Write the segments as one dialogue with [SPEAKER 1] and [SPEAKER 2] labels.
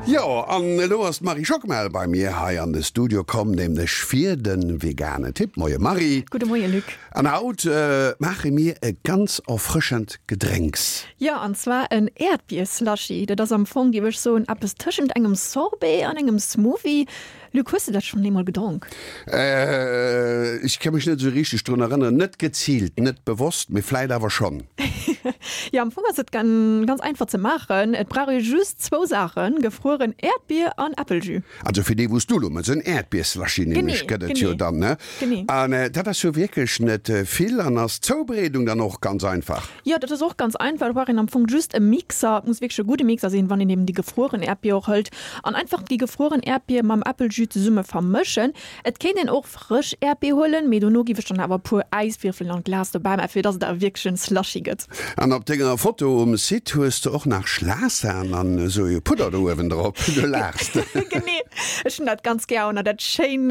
[SPEAKER 1] Jo, an elo ass d'Marie Schockmel bei mir hei an de Studio komm, nämlech fir de vegane Tipp. Moie Marie.
[SPEAKER 2] Gudde Moie Luc.
[SPEAKER 1] An haut maache mir e ganz erfrëschend Gedrénks.
[SPEAKER 2] Jo, an zwar en Äerdbier-Slushy. Dat ass am Fong, géif ech soen, eppes tëschent engem Sorbet an engem Smoothie. Luc, hues de dat schonn eemol gedronk?
[SPEAKER 1] Ech ka mech net esou richteg drun erënneren. Net geziilt, net bewosst, mee vläit awer schonn.
[SPEAKER 2] Jo, am Fong ass et ganz einfach ze maachen. Et brauch ee just zwou Saachen, gefrueren Äerdbier an Äppeljus.
[SPEAKER 1] Also fir dee wou s du elo mëss, en Äerdbier-Slushy nämlech gëtt et jo dann, ne?
[SPEAKER 2] Genee.
[SPEAKER 1] An dat ass jo wierklech net vill an ass d'Zoubereedung dann och ganz einfach?
[SPEAKER 2] Jo, dat ass och ganz einfach. Do brauch een am Fong just e Mixer. Et muss wierklech e gudde Mixer sinn, wann een eben déi gefrueren Äerdbier och hëlt. An einfach déi gefrueren Äerdbier mam Äppeljus zesumme vermëschen. Et kéint een och frësch Äerdbier huelen, mee dono giff ech dann awer e puer Äiswierfelen an d'Glas dobäi maachen, fir dass et awer wierklech en Slushy gëtt.
[SPEAKER 1] An op denger Foto um Site hues de och nach Schlagsan an esou e Pudder do uewen drop. Du laachs.
[SPEAKER 2] Genee, ech hunn dat ganz gär, an dat schéin,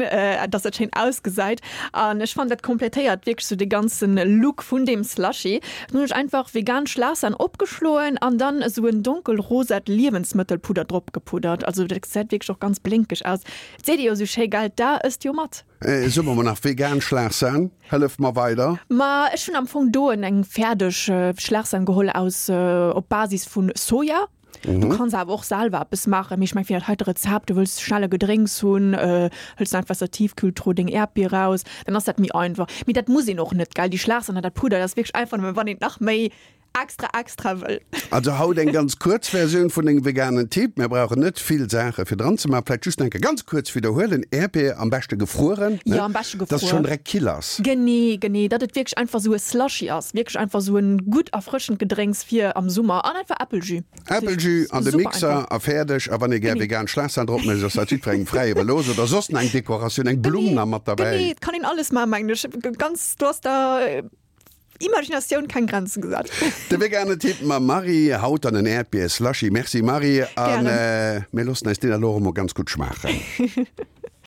[SPEAKER 2] dass dat schéin ausgesäit. An ech fannen dat kompletéiert wierklech sou de ganzen Look vun deem Slushy. Dann hunn ech einfach vegan Schlagsan opgeschloen an dann esou en donkelrosat Liewensmëttelpudder drop gepuddert. Also dat gesäit wierklech och ganz blénkeg aus. Et seet ee jo sou schéi, gell, d'A ësst jo mat.
[SPEAKER 1] Soe mer mol nach vegan Schlagsan, hëllef mer weider.
[SPEAKER 2] Ma ech hunn am Fong do eng fäerdeg Schlagsan geholl aus op Basis vun Soja. Du kanns awer och selwer eppes maachen, mee ech meng fir dat heite Rezept, du wëlls schnell e Gedrénks hunn, hëls du einfach aus der Tiefkühltruh deng Äerdbier raus, dann ass dat méi einfach. Mee dat muss een och net, gell? Déi Schlagsan an dat Pudder, dat ass wierklech einfach nëmmen, wann een et nach méi extra extra wëll.
[SPEAKER 1] Also haut eng ganz kuerz Versioun vun dengem veganen Tipp. Mir brauchen net vill Saache fir dran ze maachen. Vläicht just nach eng Kéier ganz kuerz widderhuelen, Äerdbier am beschte gefrueren,
[SPEAKER 2] ne? Jo, am beschte
[SPEAKER 1] Dass et schonn direkt kill ass.
[SPEAKER 2] Genee, genee, datt et wierklech einfach esou e Slushy ass, wierklech einfach esou en gutt erfrëschend Gedrénks fir am Summer an einfach Äppeljus.
[SPEAKER 1] Äppeljus an de Mixer a fäerdeg. A wann ee gär vegan Schlagsan drop mécht, ass dat jiddwerengem fräi iwwerlooss. Oder soss nach eng Dekoratioun, eng Blumm nach mat derbäi.
[SPEAKER 2] Genee, et kann een alles maachen, mengen ech. Ganz, do ass der Imaginatioun keng Grenzen gesat.
[SPEAKER 1] De vegane Tipp mam Marie, haut dann en Äerdbier-Slushy. Merci Marie, a mir loossen eis deen elo och emol ganz gutt schmaachen.